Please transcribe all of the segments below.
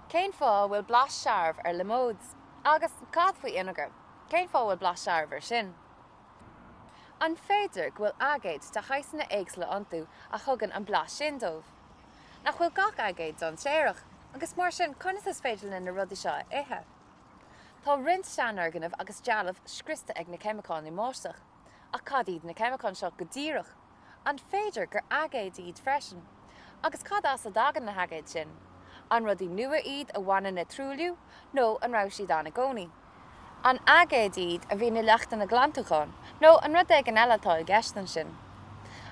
Cén fáth a bhfuil blas searbh ar liomóid? Agus cad faoi fhínéagar? Cén fáth a bhfuil blas searbh air sin? An féidir go bhfuil aigéid de shaghsanna éagsúla iontu a thugann an blas sin dóibh? Nach bhfuil gach aigéad dainséarach, agus mar sin conas is féidir linn na rudaí seo a ithe? Tá roinnt seanfhoirgneamh agus dealbh scriosta ag na ceimiceáin i mbáisteach. Ach cad iad na ceimiceáin seo go díreach? An féidir gur aigéid iad freisin? Agus cad as a dtagann na haigéid sin? An rudaí nua iad a bhaineann le truailliú nó an raibh siad ann i gcónaí? An aigéid iad a bhíonn i leachtanna glantúcháin nó an rud éigin eile atá i gceist ansin?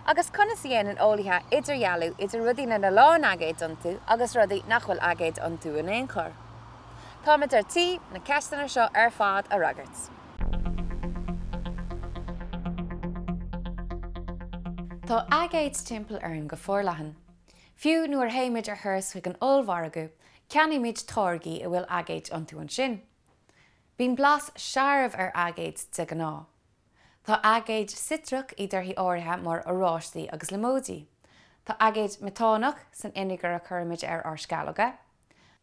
Agus conas a dhéanann eolaithe idirdhealú idir rudaí lena lán aigéid iontu agus rudaí nach bhfuil aigéid iontu in aon chor? Táimid ar tí na ceisteanna seo ar fad a fhreagairt. Tá aigéid timpeall orainn go forleathan. Fiú nuair a théimid ar thuras chuig an ollmhargadh, ceannaímid táirgí a bhfuil aigéid iontu ansin. Bíonn blas searbh ar aigéid de ghnáth. Tá aigéid citreach i dtorthaí áirithe mar oráistí agus liomóidí. Tá aigéad meatánach san fhínéagar a chuirimid ar ár sceallóga.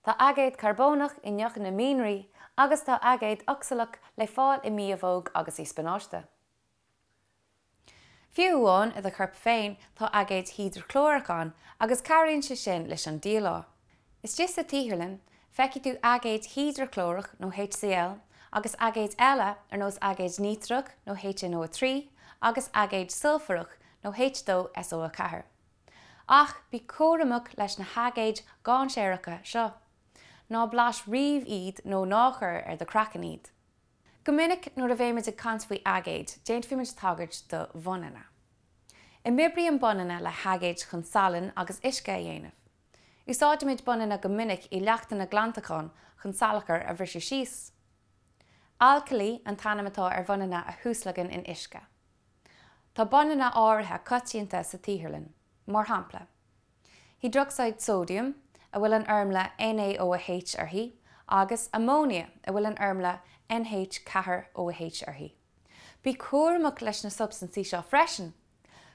Tá aigéad carbónach i ndeochanna mianraí agus tá aigéad ocsalach le fáil i mbiabhóg agus i spionáiste. Fiú amháin i do chorp féin tá aigéad hidreaclórach ann agus cabhraíonn sé sin leis an díleá. Istigh sa tsaotharlann, feicfidh tú aigéad hidreaclórach nó HCl agus aigéid eile ar nós aigéad nítrach nó HNO3 agus aigéad sulfarach nó H2SO4. Ach bí cúramach leis na haigéid dhainséaracha seo. Ná blais riamh iad nó ná cuir ar do chraiceann iad. Go minic nuair a bheimid ag caint faoi aigéid, déanfaimid tagairt do bhunanna. Imoibríonn bunanna le haigéid chun salann agus uisce a dhéanamh. Úsáidimid bunanna go minic i leachtanna glantacháin chun salachar a bhriseadh síos. Alcailí an t-ainm atá ar bhunanna a thuaslagann in uisce. Tá bunanna áirithe coitianta sa tsaotharlann, mar shampla, hiodrocsaíd sóidiam, a bhfuil an fhoirmle NaOH uirthi, agus amóinia, a bhfuil an fhoirmle NH4OH uirthi. Bí cúramach leis na substaintí seo freisin!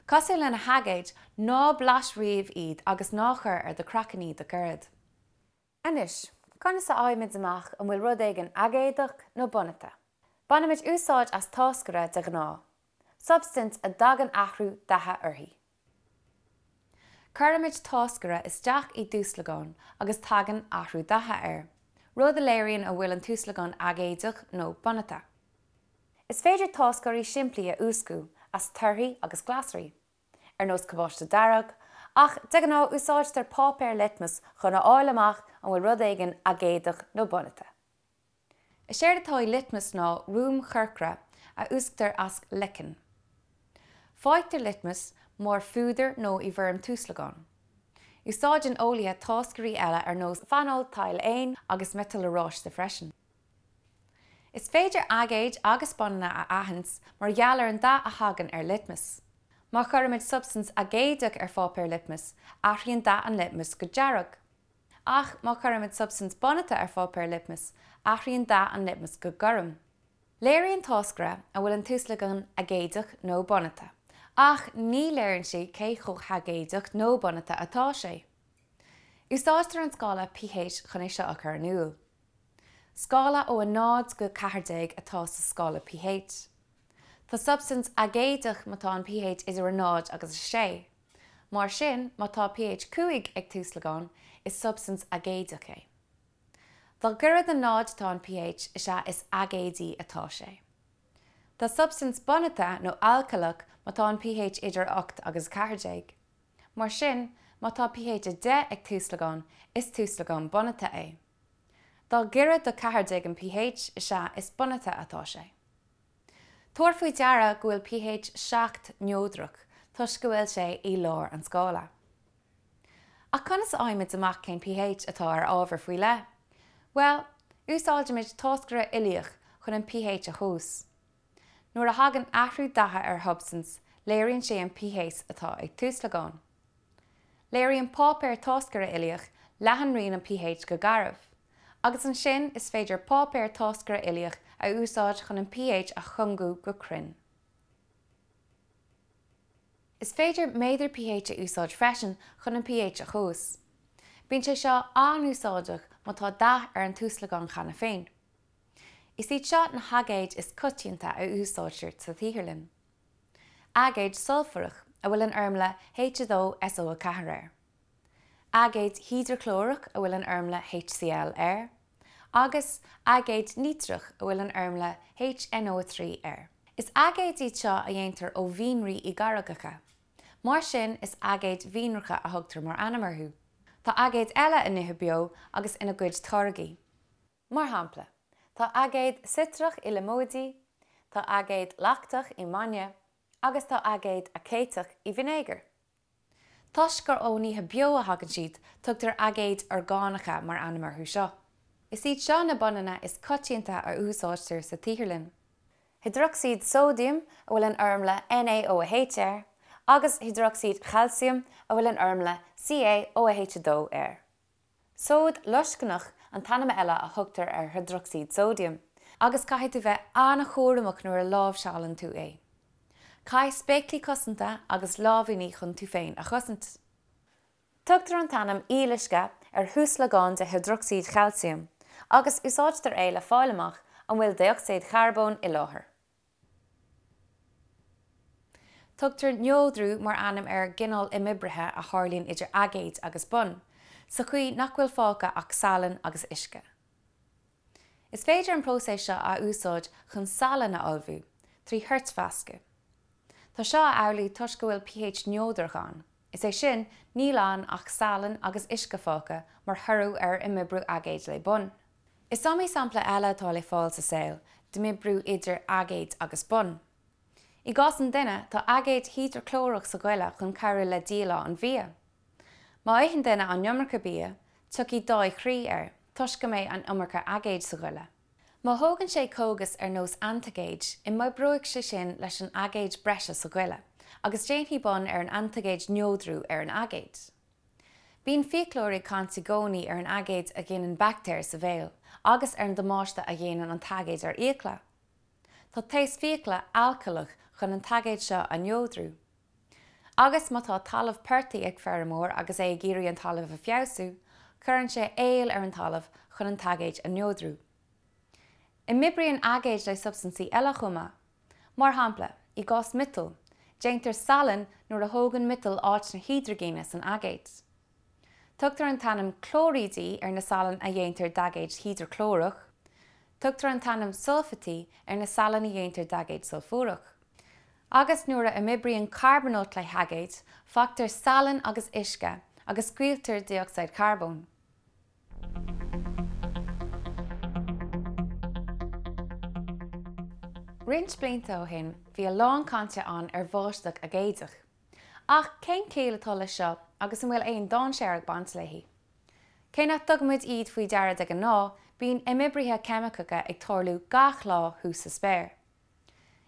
Cosúil le na haigéid, ná blais riamh iad agus ná cuir ar do chraiceann iad ach oiread. Anois, conas a fhaighimid amach an bhfuil rud éigin aigéadach nó bunata? Bainimid úsáid as táscaire de ghnáth, substaint a dtagann athrú datha uirthi. Cuirimid táscaire isteach i dtuaslagán agus tagann athrú datha air, rud a léiríonn an bhfuil an tuaslagán aigéadach nó bunata. Is féidir táscairí simplí a úscadh as torthaí agus glasraí. ar nós cabáiste dearg, ach de ghnáth úsáidtear páipéar litmus chun a fháil amach an bhfuil rud éigin aigéadach nó bunata. Is éard atá i litmus ná ruaim chorcra a úsctar as leiceann. Faightear litmus mar phúdar nó i bhfoirm tuaslagán. Úsáideann eolaithe táscairí eile ar nós feanóltaidhléin agus miotal oráiste freisin. Is féidir aigéid agus bunanna a aithint mar gheall ar an dath a thagann ar litmus. Má chuirimid substaint aigéadach ar pháipéar litmus, athraíonn dath an litmus go dearg. Ach má chuirimid substaint bunata ar pháipéar litmus, athraíonn dath an litmus go gorm. Léiríonn táscaire an bhfuil an tuaslagán aigéadach nó bunata, ach ní léiríonn sé cé chomh haigéadach nó bunata atá sé. Úsáidtear an scála pH chun é seo a chur in iúl. Scála ó 0 go 14 atá sa scála pH. Tá substaint aigéadach má tá an pH idir 0 agus 6. Mar sin, má tá pH 5 ag tuaslagán, is substaint aigéadach é. Dá ghaire do 0 atá an pH, is ea is aigéadaí atá sé. Tá substaint bunata nó alcaileach má tá an pH idir 8 agus 14. Mar sin, má tá pH 10 ag tuaslagán, is tuaslagán bunata é. Dá ghaire do 14 an pH, is ea is bunata atá sé. Tabhair faoi deara go bhfuil pH 7 neodrach toisc go bhfuil sé i lár an scála. Ach conas a fhaighimid amach cén pH atá ar ábhar faoi leith? Bhuel, úsáidimid táscaire uilíoch chun an pH a thomhas. Nuair a thagann athrú datha ar shubstaint, léiríonn sé an pH atá ag tuaslagán. Léiríonn páipéar táscaire uilíoch leathanraon an pH go garbh, agus ansin is féidir páipéar táscaire uilíoch a úsáid chun an pH a chúngú go cruinn. Is féidir méadar pH a úsáid freisin chun an pH a thomhas. Bíonn sé seo an-úsáideach má tá dath ar an tuaslagán cheana féin. Is iad seo na haigéid is coitianta a úsáidtear sa tsaotharlann. Aigéad sulfarach, a bhfuil an fhoirmle H2SO4 air. Aigéad hidreaclórach a bhfuil an fhoirmle HCl air, agus aigéad nítreach a bhfuil an fhoirmle HNO3 air. Is aigéid iad seo a dhéantar ó mhianraí i gcarraigeacha. Mar sin is aigéid mhianracha a thugtar mar ainm orthu. Tá aigéid eile i nithe beo agus ina gcuid táirgí. Mar shampla, tá aigéad citreach i liomóidí, tá aigéad lachtach i mbainne agus tá aigéad aicéiteach i bhfínéagar. Toisc gur ó nithe beo a thagann siad, tugtar aigéid orgánacha mar ainm orthu seo. Is iad seo na bunanna is coitianta a úsáidtear sa tsaotharlann. Hiodrocsaíd sóidiam, a bhfuil an fhoirmle NaOH air, agus hiodrocsaíd chailciam, a bhfuil an fhoirmle CaOH2 air. Sóid loiscneach an t-ainm eile a thugtar ar hiodrocsaíd sóidiam, agus caithfidh tú bheith an-chúramach nuair a láimhseálann tú é. Caith spéaclaí cosanta agus láimhíní chun tú féin a chosaint. Tugtar an t-ainm aoluisce ar thuaslagán de hiodrocsaíd chailciam, agus úsáidtear é le fáil amach an bhfuil dé-ocsaíd charbóin i láthair. Tugtar neodrú mar ainm ar an gcineál imoibrithe a tharlaíonn idir aigéid agus bun, sa chaoi nach bhfuil fágtha ach salann agus uisce. Is féidir an próiseas seo a úsáid chun salann a ullmhú, trí thoirtmheascadh. Tá seo amhlaidh toisc go bhfuil pH neodrach ann, is é sin, níl ann ach salann agus uisce fágtha mar thoradh ar imoibriú aigéid le bun. Is iomaí sampla eile atá le fáil sa saol d'imoibriú idir aigéid agus bun. I gcás an duine, tá aigéad hidreaclórach sa ghoile chun cabhrú le díleá an bhia. Má itheann duine an iomarca bia, tiocfaidh dáigh chroí air, toisc go mbeidh an iomarca aigéid sa ghoile. Má thógann sé cógas ar nós antaigéid, imoibreoidh sé sin leis an aigéad breise sa ghoile, agus déanfaidh bun ar an antaigéid neodrú ar an aigéad. Bíonn fiaclóirí ag caint i gcónaí ar an aigéad a ghineann baictéir sa bhéal agus ar an damáiste a dhéanann an t-aigéad ar fhiacla. Tá taos fiacla alcaileach chun an t-aigéad seo a neodrú. Agus má tá talamh portaigh ag feirmeoir agus é ag iarraidh an talamh a feabhsú, cuireann sé aol ar an talamh chun an t-aigéad a neodrú. Imoibríonn aigéid le substaintí eile chomh maith. Mar shampla, i gcás miotail, déantar salainn nuair a thógann miotal áit na hidrigine san aigéad. Tugtar an t-ainm clóirídí ar na salainn a dhéantar d'aigéad hidreaclórach. Tugtar an t-ainm sulfaití ar na salainn a dhéantar d'aigéad sulfúrach. Agus nuair a imoibríonn carbónáit le haigéid, faightear salainn agus uisce agus scaoiltear dé-ocsaíd charbóin. Roinnt blianta ó shin bhí a lán cainte ann ar bháisteach aigéadach. Ach cén chiall atá leis seo agus an bhfuil aon dainséar ag baint léi? Cé nach dtugaimid iad faoi deara de ghnáth, bíonn imoibrithe ceimiceacha ag tarlú gach lá thuas sa spéir.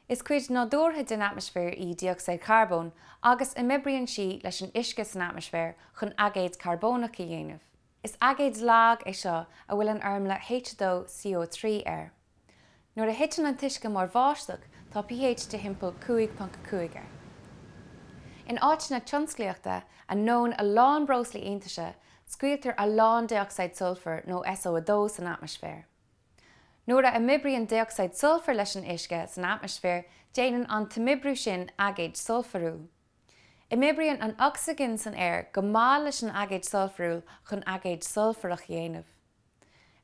Is cuid nádúrtha den atmaisféar í dé-ocsaíd charbóin agus imoibríonn sí leis an uisce san atmaisféar chun aigéad carbónach a dhéanamh. Is aigéad lag é seo a bhfuil an fhoirmle H2CO3 air. Nuair a thiteann an t-uisce mar bháisteach tá pH de thimpeall 5.5 air. In áiteanna tionsclaíochta a ndónn a lán breoslaí iontaise, scaoiltear a lán dé-ocsaíd sulfair nó SO2 san atmaisféar. Nuair a imoibríonn dé-ocsaíd sulfair leis an uisce san atmaisféar, déanann an t-imoibriú sin aigéad sulfarúil. Imoibríonn an ocsaigin san aer go maith leis an aigéad sulfarúil chun aigéad sulfarach a dhéanamh.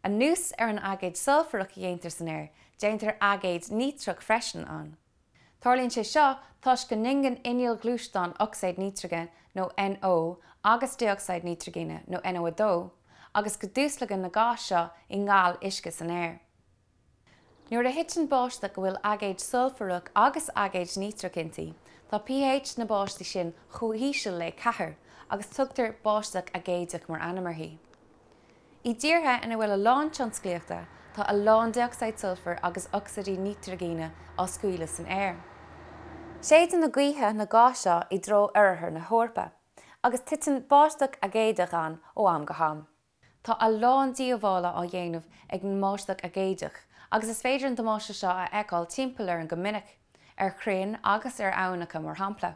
Anuas ar an aigéad sulfarach a dhéantar san aer, déantar aigéad nítreach freisin ann. Tarlaíonn sé seo toisc go n-ingeann innill ghluaisteáin ocsaíd nítrigine nó NO agus dé-ocsaíd nítrigine nó NO2 agus go dtuaslagann na gáis seo i ngal uisce san aer. Nuair a thiteann báisteach a bhfuil aigéad sulfarach agus aigéad nítreach inti, tá pH na báistí sin chomh híseal le 4 agus tugtar báisteach aigéadach mar ainm uirthi. I dtíortha ina bhfuil a lán tionsclaíochta, tá a lán dé-ocsaíd sulfair agus ocsaídí nítrigine á scaoileadh san aer. Séideann na gaotha na gáis seo i dtreo oirthear na hEorpa, agus titeann báisteach aigéadach ann ó am go ham. Tá a lán díobhála á dhéanamh ag an mbáisteach aigéadach, agus is féidir an damáiste seo a fheiceáil timpeall orainn go minic, ar chrainn agus ar aibhneacha mar shampla.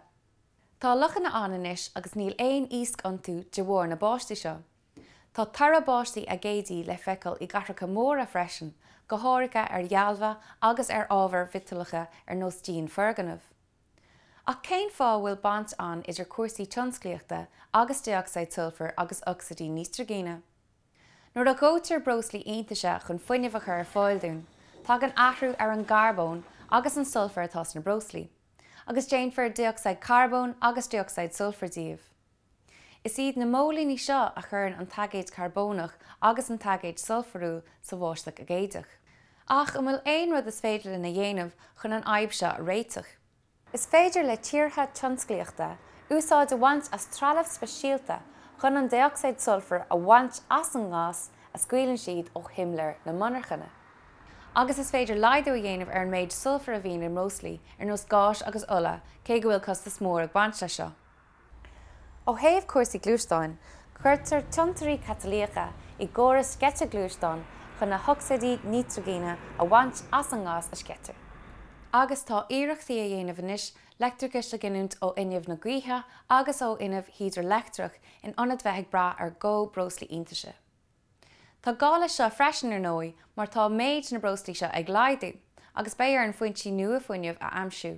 Tá lochanna ann anois agus níl aon iasc iontu de bharr na báistí seo. Tá toradh báistí aigéadaí le feiceáil i gcathracha móra freisin, go háirithe ar dhealbha agus ar ábhair mhiotalacha ar nós díon foirgneamh. Ach cén fáth a bhfuil baint ann idir cúrsaí tionsclaíochta agus dé-ocsaíd sulfair agus ocsaídí nítrigine? Nuair a dhóitear breoslaí iontaise chun fuinneamh a chur ar fáil dúinn, tagann athrú ar an gcarbón agus an sulfar atá sna breoslaí, agus déanfar dé-ocsaíd carbóin agus dé-ocsaíd sulfair díobh. Is iad na móilíní seo a chuireann an t-aigéad carbónach agus an t-aigéad sulfarúil sa bháisteach aigéadach. Ach an bhfuil aon rud is féidir linn a dhéanamh chun an fhadhb seo a réiteach? Is féidir le tíortha tionsclaíochta úsáid a bhaint as trealamh speisialta chun an dé-ocsaíd sulfair a bhaint as an ngás a scaoileann siad ó shimléir na monarchana. Agus is féidir laghdú a dhéanamh ar an méid sulfair a bhíonn i mbreoslaí ar nós gáis agus ola cé go bhfuil costas mór ag baint leis seo. Ó thaobh cúrsaí gluaisteáin, cuirtear tiontairí catalaíocha i gcórais sceite gluaisteán chun na hocsaídí nítrigine a bhaint as an ngás a sceitear. Agus tá iarrachtaí á dhéanamh anois leictreachas a ghiniúint ó fhuinneamh na gaoithe agus ó fhuinneamh hídrileictreach in ionad bheith ag brath ar dhó breoslaí iontaise. Tá gá leis seo freisin, ar ndóigh, mar tá méid na mbreoslaí seo ag laghdú, agus beidh orainn foinsí nua fuinnimh a aimsiú.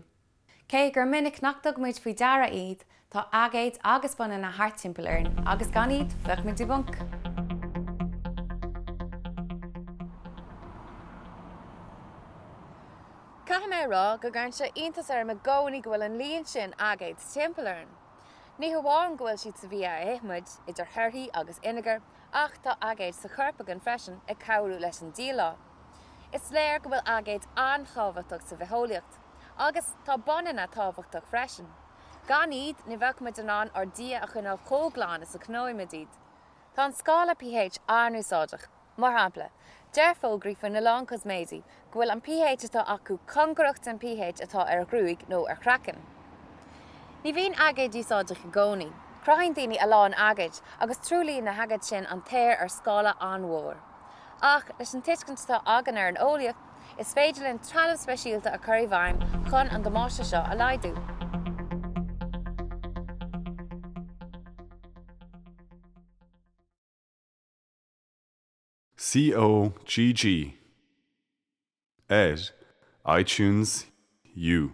Cé gur minic nach dtugaimid faoi deara iad, tá aigéid agus bunanna thart timpeall orainn agus gan iad, bheadh muid i bponc! Caithfidh mé a rá go gcuireann sé iontas orm i gcónaí go bhfuil an líon sin aigéad timpeall orainn. Ní hamháin go bhfuil siad sa bhia a ithimid, idir thorthaí agus fhínéagar, ach tá aigéid sa chorp againn freisin ag cabhrú leis an díleá. Is léir go bhfuil aigéid an-tábhachtach sa bhitheolaíocht. Agus tá bunanna tábhachtach freisin. Gan iad, ní bheadh muid in ann ár dtithe a choinneáil chomh glan is a choinneoimid iad. Tá an scála pH an-úsáideach. Mar shampla, deir fógraí faoina lán cosméidí go bhfuil an pH atá acu cóngarach den pH atá ar ghruaig nó ar chraiceann. Ní bhíonn aigéid úsáideach i gcónaí. Cruthaíonn daoine a lán aigéid, agus truaillíonn na haigéid sin an t-aer ar scála an-mhór. Ach leis an tuiscint atá againn ar an eolaíocht, is féidir linn trealamh speisialta a chur i bhfeidhm chun an damáiste seo a laghdú. COGG ar iTunes U.